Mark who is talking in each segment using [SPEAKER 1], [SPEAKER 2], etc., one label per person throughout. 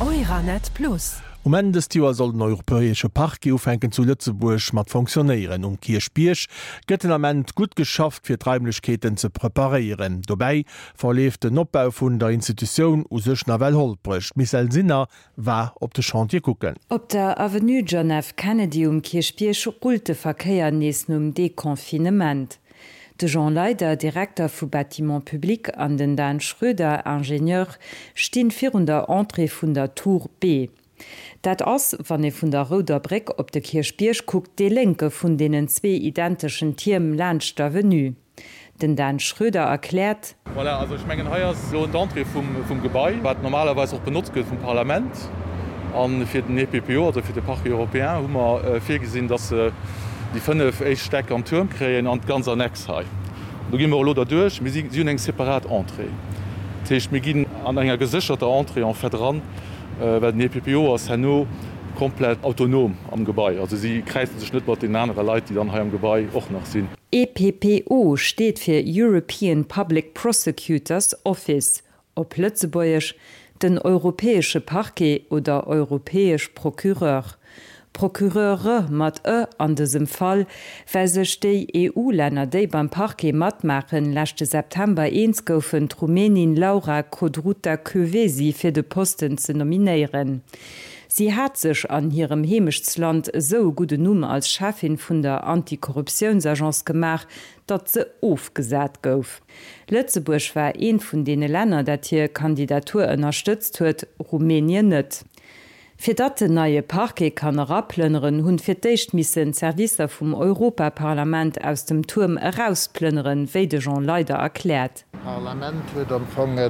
[SPEAKER 1] Euranet Plus.
[SPEAKER 2] Um Enn dëst Joer soll den Europäesche Parquet ufänken zu Lëtzebuerg mat fonctionnéieren. Um Kierchbierg gëtt den Ament gutt geschafft fir d'Raimlechkeeten ze preparéieren. Dobäi verleeft den Opbau vun der Institutioun u sech nawell holpreg. D'Michèle Sinner war op de Chantier kucken.
[SPEAKER 3] Op der Avenue John F. Kennedy um Kierchbierg rullt de Verkéier nees nom Deconfinement. De Jean Leyder, Direkter vu Bâtiments publics, an den Dan Schroeder, Ingenieur, stinn virun der Entrée vun der Tour B. Dat ass, wann ee vun der Rouder Bréck op de Kierchbierg kuckt, dee lénke vun deenen zwee identeschen Tierm laanscht d'Avenue. Den Dan Schroeder erkläert.
[SPEAKER 4] Voilà, also ech mengen, hei ass elo d'Entrée vum Gebai, wat normalerweis och benotzt gëtt vum Parlament. A fir den EPPO, also fir de Parquet européen, hu mer virgesinn, dass se déi 5 éischt Stäck am Tuerm kréien an d'ganz Annex hei. Do gi mer elo derduerch. Mir si hunn eng separat Entrée. Dat heescht, mir ginn an enger gesécherter Entrée en fait eran, well den EPPO ass herno komplett autonom am Gebai. Also si kräize sech net mat deenen anere Leit, déi dann hei am Gebai och nach sinn.
[SPEAKER 3] EPPO steet fir European Public Prosecutor's Office, op Lëtzebuergesch, den Europäesche Parquet oder Europäesch Procureur. Procureure mat e an dësem Fall, well sech déi EU-Länner, déi beim Parquet matmaachen, leschte September eens goufen, d'Rumänin Laura Codruta Kövesi fir de Posten ze nominéieren. Si hat sech an hirem Heemechtsland esou e gudden Numm als Cheffin vun der Antikorruptiounsagence gemaach, datt se ofgesat gouf. Lëtzebuerg war eent vun deene Länner, dat hir Kandidatur ënnerstëtzt huet, Rumänien net. Fir datt den neie Parquet kann eraplënneren, hunn fir d'éischt missen d'Servicer vum Europaparlament aus dem Tuerm erausplënneren, wéi de Jean Leyder erkläert.
[SPEAKER 5] D'Parlament huet am Fong e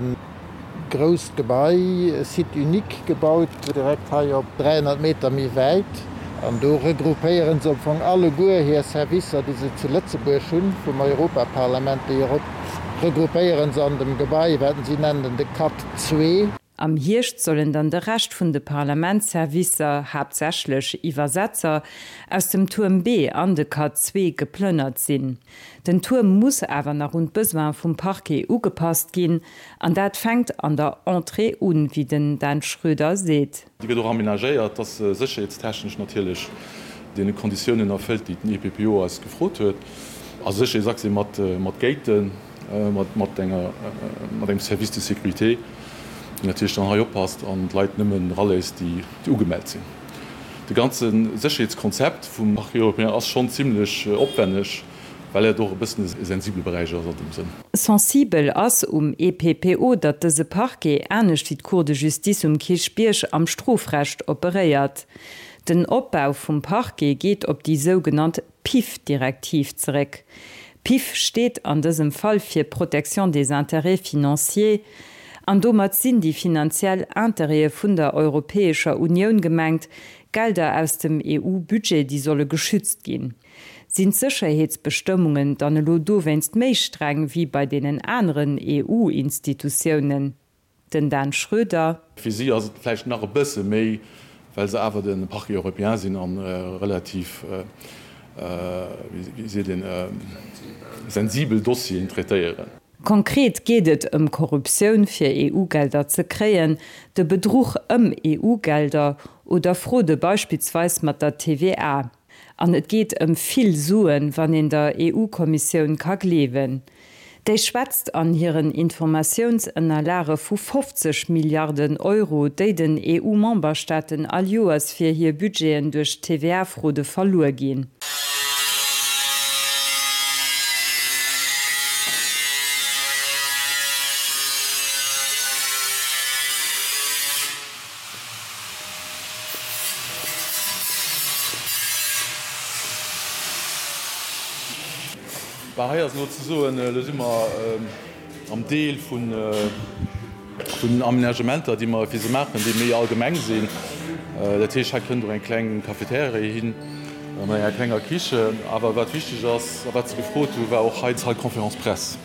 [SPEAKER 5] grousst Gebai, e Site unique gebaut, direkt hei op 300 Meter méi wäit. An do regroupéiere se am Fong alleguer hir Servicer, déi se zu Lëtzebuerg hunn, vum Europaparlament. Déi regroupéiere se an dem Gebai, wat si nennen de Cat zwee.
[SPEAKER 3] Am Hierscht sollen dann de Rescht vun de Parlamentsservicer, haaptsächlech Iwwersetzer, aus dem Tuerm B an de Cat zwee geplënnert sinn. Den Tuerm muss awer nach un d'Besoine vum Parquet ugepasst ginn, an dat fänkt an der Entrée un, wéi den Dan Schroeder seet.
[SPEAKER 4] Déi gëtt och amenagéiert, dass se sécherheetstechnesch natierlech deene Konditiounen erfëllt, déi den EPPO eis gefrot huet. Also Sécherheetsaccès mat Gaten. Mat engem Service de sécurité, deen natierlech dann hei oppasst an d'Leit nëmmen eraléisst, déi ugemellt sinn. De ganze Sécherheetskonzept vum Parquet européen ass schonn zimlech opwenneg, well et och e bëssen e sensibele Beräich ass an deem Sënn.
[SPEAKER 3] Sensibel ass um EPPO, datt dëse Parquet, anescht wéi d'Cour de justice um Kierchbierg, am Strofrecht operéiert. Den Opbau vum Parquet geet op déi sougenannt PIF-Direktiv zeréck. PIF steet an dësem Fall fir Protection des intérêts financiers, an domat sinn déi finanziell Intérêtë vun der Europäescher Unioun gemengt, Gelder aus dem EU-Budget, déi solle geschützt ginn. Sinn d'Sécherheetsbestëmmungen dann elo dowéinst méi streng wéi bei deenen aneren EU-Institutiounen? Den Dan Schröder.
[SPEAKER 4] Fir si ass et vläicht nach e bësse méi, well se awer de Parquet européen sinn a relativ, wéi seet een, sensibel Dossieren traitéieren.
[SPEAKER 3] Konkret geet et ëm Korruptioun fir EU-Gelder ze kréien, de Bedruch ëm EU-Gelder oder Fraude beispillsweis mat der TVA. An et geet ëm vill Suen, wann een der EU-Kommissioun ka gleewen. Déi schwätzt an hiren Informatiounsënnerlage vu 50 Milliarden Euro, déi den EU-Memberstaaten all Joers fir hir Budgeten duerch d'TVA-Fraude verluer ginn.
[SPEAKER 4] Bah, hei ass elo ze soen, elo si mer am Deel vun den Aménagementer, déi mer fir se maachen, déi méi allgemeng sinn. Dat heescht, hei kënnt och eng kleng Cafeteria hin mat enger klenger Kichen. Awer wat wichteg ass a wat se gefrot hu war och hei d'Salle conférence presse,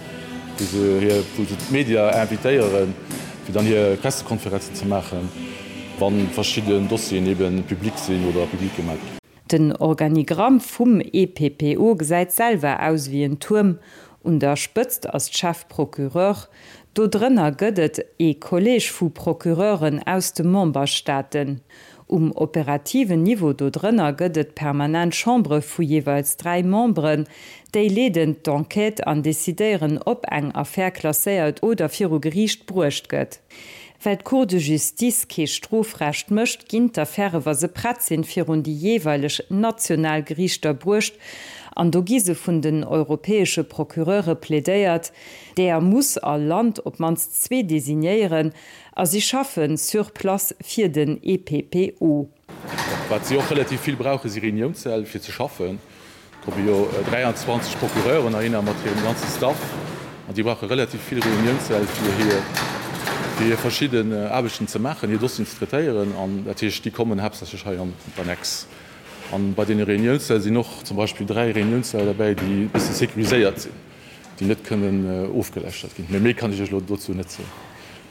[SPEAKER 4] wou se hir, wou se d'Media invitéieren, fir dann hir Pressekonferenzen ze maachen, wa verschidden Dossieren ebe public sinn oder public gemaach ginn.
[SPEAKER 3] Den Organigramm vum EPPO gesäit selwer aus ewéi en Tuerm. Un der Spëtzt ass d'Chef-Procureur. Do drënner gëtt et ee Collège vu Procureuren aus de Memberstaaten. Um operativen Niveau do drënner gëtt et permanent Chambere vu jeeweils 3 Memberen. Déi leeden d'Enquête an decidéieren, ob eng Affär klasséiert oder viru Geriicht bruecht gëtt. Well d'Cour de justice kee Strofrecht mécht, ginn d'Affäre wa se prett sinn, virun déi jeeweileg national Geriichter bruecht an do gi se vun den europäesche Procureure plädéiert. Deeër muss all Land op d'mannst zwee designéieren a si schaffe sur place fir den EPPO.
[SPEAKER 4] Wat si och relativ vill brauchen, si Reuniounssäll fir ze schaffen. Et komme jo 23 Procureuren heihinner mat hirem ganze Staff an déi brauche relativ vill Reuniounssäll fir hir fir hir verschidden Aarbechten ze maachen, hir Dossieren ze traitéieren. An dat heescht, déi kommen haaptsächlech hei an d'Annex. An bei deene Reuniounssäll sinn och zum Beispill 3 Reuniounssäll derbäi, déi e bësse sécuriséiert sinn. déi net kënnen ofgeläuschtert ginn. Mee méi kann ech Iech elo dozou net soen.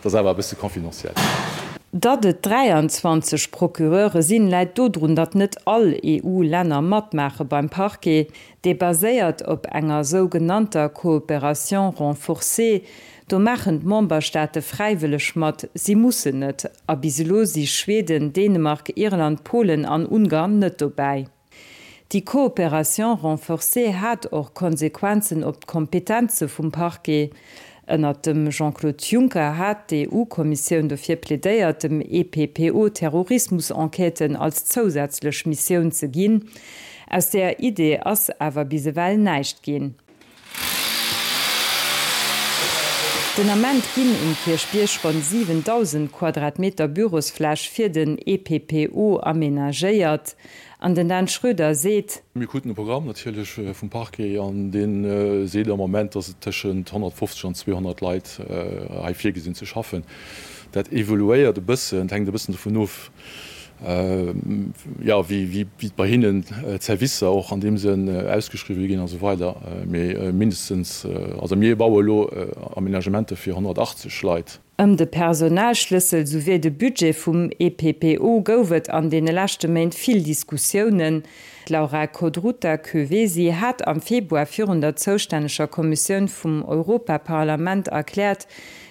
[SPEAKER 4] Dat ass awer e bësse confidentiel.
[SPEAKER 3] Datt et 23 Procureure sinn, läit dodrun, datt net all EU-Länner matmaache beim Parquet. Dee baséiert op enger sougenannter Coopération renforcée. Do maachen d'Memberstaate fräiwëlleg mat, si mussen net. A bis elo si Schweden, Dänemark, Irland, Polen an Ungarn net dobäi. Déi Coopération renforcée hat och Konsequenzen op d'Kompetenze vum Parquet. Ënnert dem Jean-Claude Juncker hat d'EU-Kommissioun dofir plädéiert, dem EPPO Terrorismus-Enquêten als zousätzlech Missioun ze ginn. Aus där Idee ass awer bis ewell näischt ginn. Den Ament ginn um Kierchbierg ronn 7.000 Quadratmeter Bürosfläch fir den EPPO amenagéiert. An den Dan Schroeder seet.
[SPEAKER 4] Mir kruten e Programm natierlech vum Parquet an dee seet am Moment, datt et tëschent 150 an 200 Leit hei virgesinn ze schaffen. Dat evoluéiert e bëssen, et hänkt e bëssen dovun of, jo, wéi bei hinnen d'Servicer och an deem Sënn ausgeschriwwen ginn a sou weider. Mee mindestens, also mir baue elo Aménagementer fir 180 Leit.
[SPEAKER 3] Ëm de Personalschlëssel souwéi de Budget vum EPPO gouf et an deene leschte Méint vill Diskussiounen. D'Laura Codruta Kövesi hat am Februar virun der zoustänneger Kommissioun vum Europaparlament erkläert,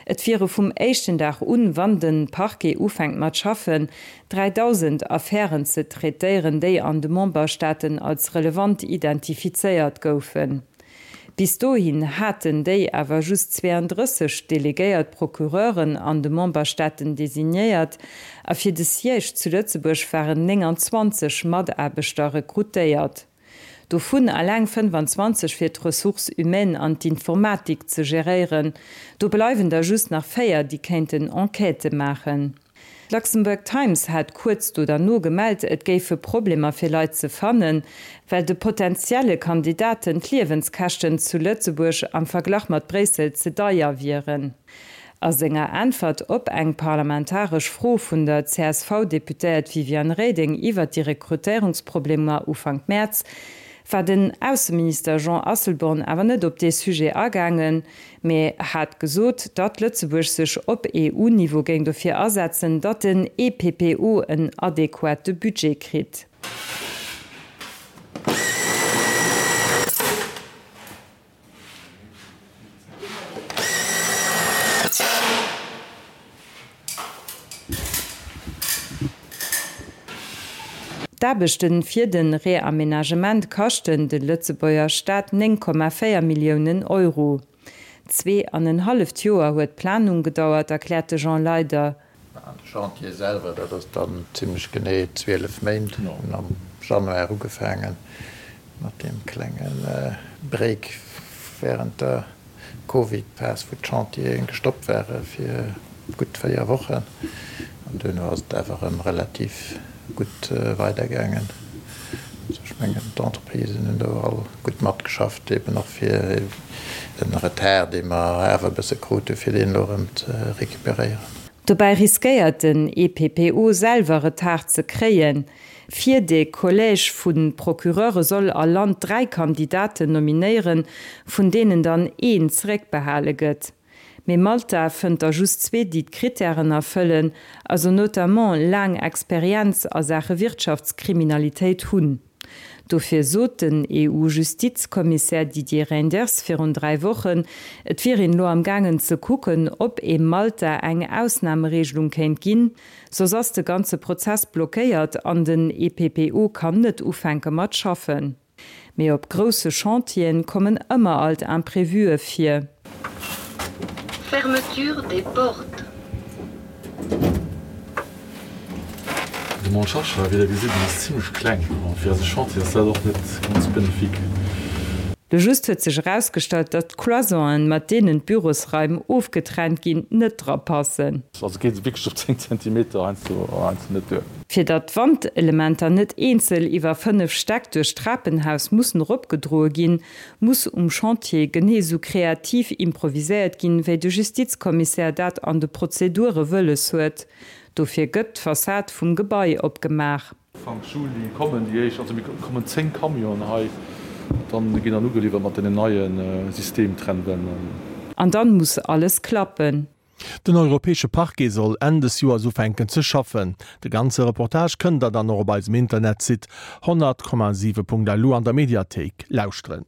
[SPEAKER 3] Et wiere vum éischten Dag un, wann de Parquet ufänkt mat schaffen, 3.000 Affären ze traitéieren, déi an de Memberstaaten als relevant identifizéiert goufen. Bis dohin haten déi awer just 32 delegéiert Procureuren an de Memberstaaten designéiert a fir de Siège zu Lëtzebuerg waren 29 Mataarbechter rekrutéiert. Dovun eleng 25 fir d'Ressources humaines an d'Informatik ze geréieren. Do bleiwen der just nach 4, déi kéinten Enquêtë maachen. D'Luxembourg Times hat kuerz do derno gemellt, et géife Problemer fir Leit ze fannen, well de potentielle Kandidaten d'Liewenskäschten zu Lëtzebuerg am Verglach mat Bréissel ze deier wieren. A senger Äntwert op eng parlamentaresch Fro vun der CSV-Deputéiert Viviane Reding iwwert déi Rekrutéierungsproblemer Ufank Mäerz, war den Ausseminister Jean Asselborn awer net op dee Sujet agaangen, mee hat gesot, datt Lëtzebuerg sech op EU-Niveau géing dofir asetzen, datt den EPPO en adequate Budget kritt. D'Aarbechte fir de Reamenagement kaschten de Lëtzebuerger Staat 9,4 Milliounen Euro. Zwee an en halleft Joer huet d'Planung gedauert, erkläert de Jean Leyder.
[SPEAKER 5] An de Chantier selwer, dat ass dann zimlech genee 12 Méint. Mir hunn am Januar ugefaange mat deem klenge Break wärend der Covid-Phas, wou d'Chantiere gestoppt ware fir gutt 4 Wochen. An duerno ass et awer erëm relativ gutt weidergaangen. Also ech mengen, d'Entreprisen hunn do all gutt matgeschafft, eben och fir den Retard, dee mer awer e bësse krute fir deen elo erëm ze recuperéieren.
[SPEAKER 3] Dobäi riskéiert den EPPO selwer Retard ze kréien. Fir de Collège vu Procureure soll all Land 3 Kandidaten nominéieren, vun deenen dann een zeréckbehale gëtt. Mee Malta fënnt der just zwee, déi d'Krittären erfëllen, also notamment laang Experienz a Saache Wirtschaftskriminalitéit hunn. Dofir sot den EU-Justizkommissär Didier Reynders virun 3 Wochen, et wier een elo am gaangen ze kucken, ob ee Malta eng Ausnamereegelung kéint ginn. Soss ass de ganze Prozess blockéiert an den EPPO kann net ufänke mat schaffen. Mee op grousse Chantieren kommen ëmmer alt Imprévuë vir.
[SPEAKER 1] Fermeture des portes.
[SPEAKER 4] De Mont Shasha, wéi der gesitt, en ass zimlech kleng an fir eise Chantier ass dat och net ganz bénéfique.
[SPEAKER 3] Lo just huet sech erausgestallt, datt d'Cloisonen, mat deenen d'Bürosraim ofgetrennt ginn, net dra passen.
[SPEAKER 4] Also geet et wierklech op 10 Zentimeter heiansdo net duer.
[SPEAKER 3] Fir datt d'Wandelementer net eenzel iwwer 5 Stäck duerch d'Trapenhaus mussen eropgedroe ginn, muss um Chantier genee sou kreativ improviséiert ginn, wéi de Justizkommissär dat an de Prozedure wëlles huet. Dofir gëtt d'Fassad vum Gebai opgemaach.
[SPEAKER 4] Ufank Juli kommen déi éischt, also mir kommen 10 Camionen hei, dann ginn dann ugeliwwert mat deenen neie Systemtrennwänn.
[SPEAKER 3] An dann muss alles klappen.
[SPEAKER 2] Den Europäesche Parquet soll Enn des Joers ufänken ze schaffen. De ganze Reportage kënnt der dann och op eisem Internetsite 100,7.lu an der Mediathéik lauschteren.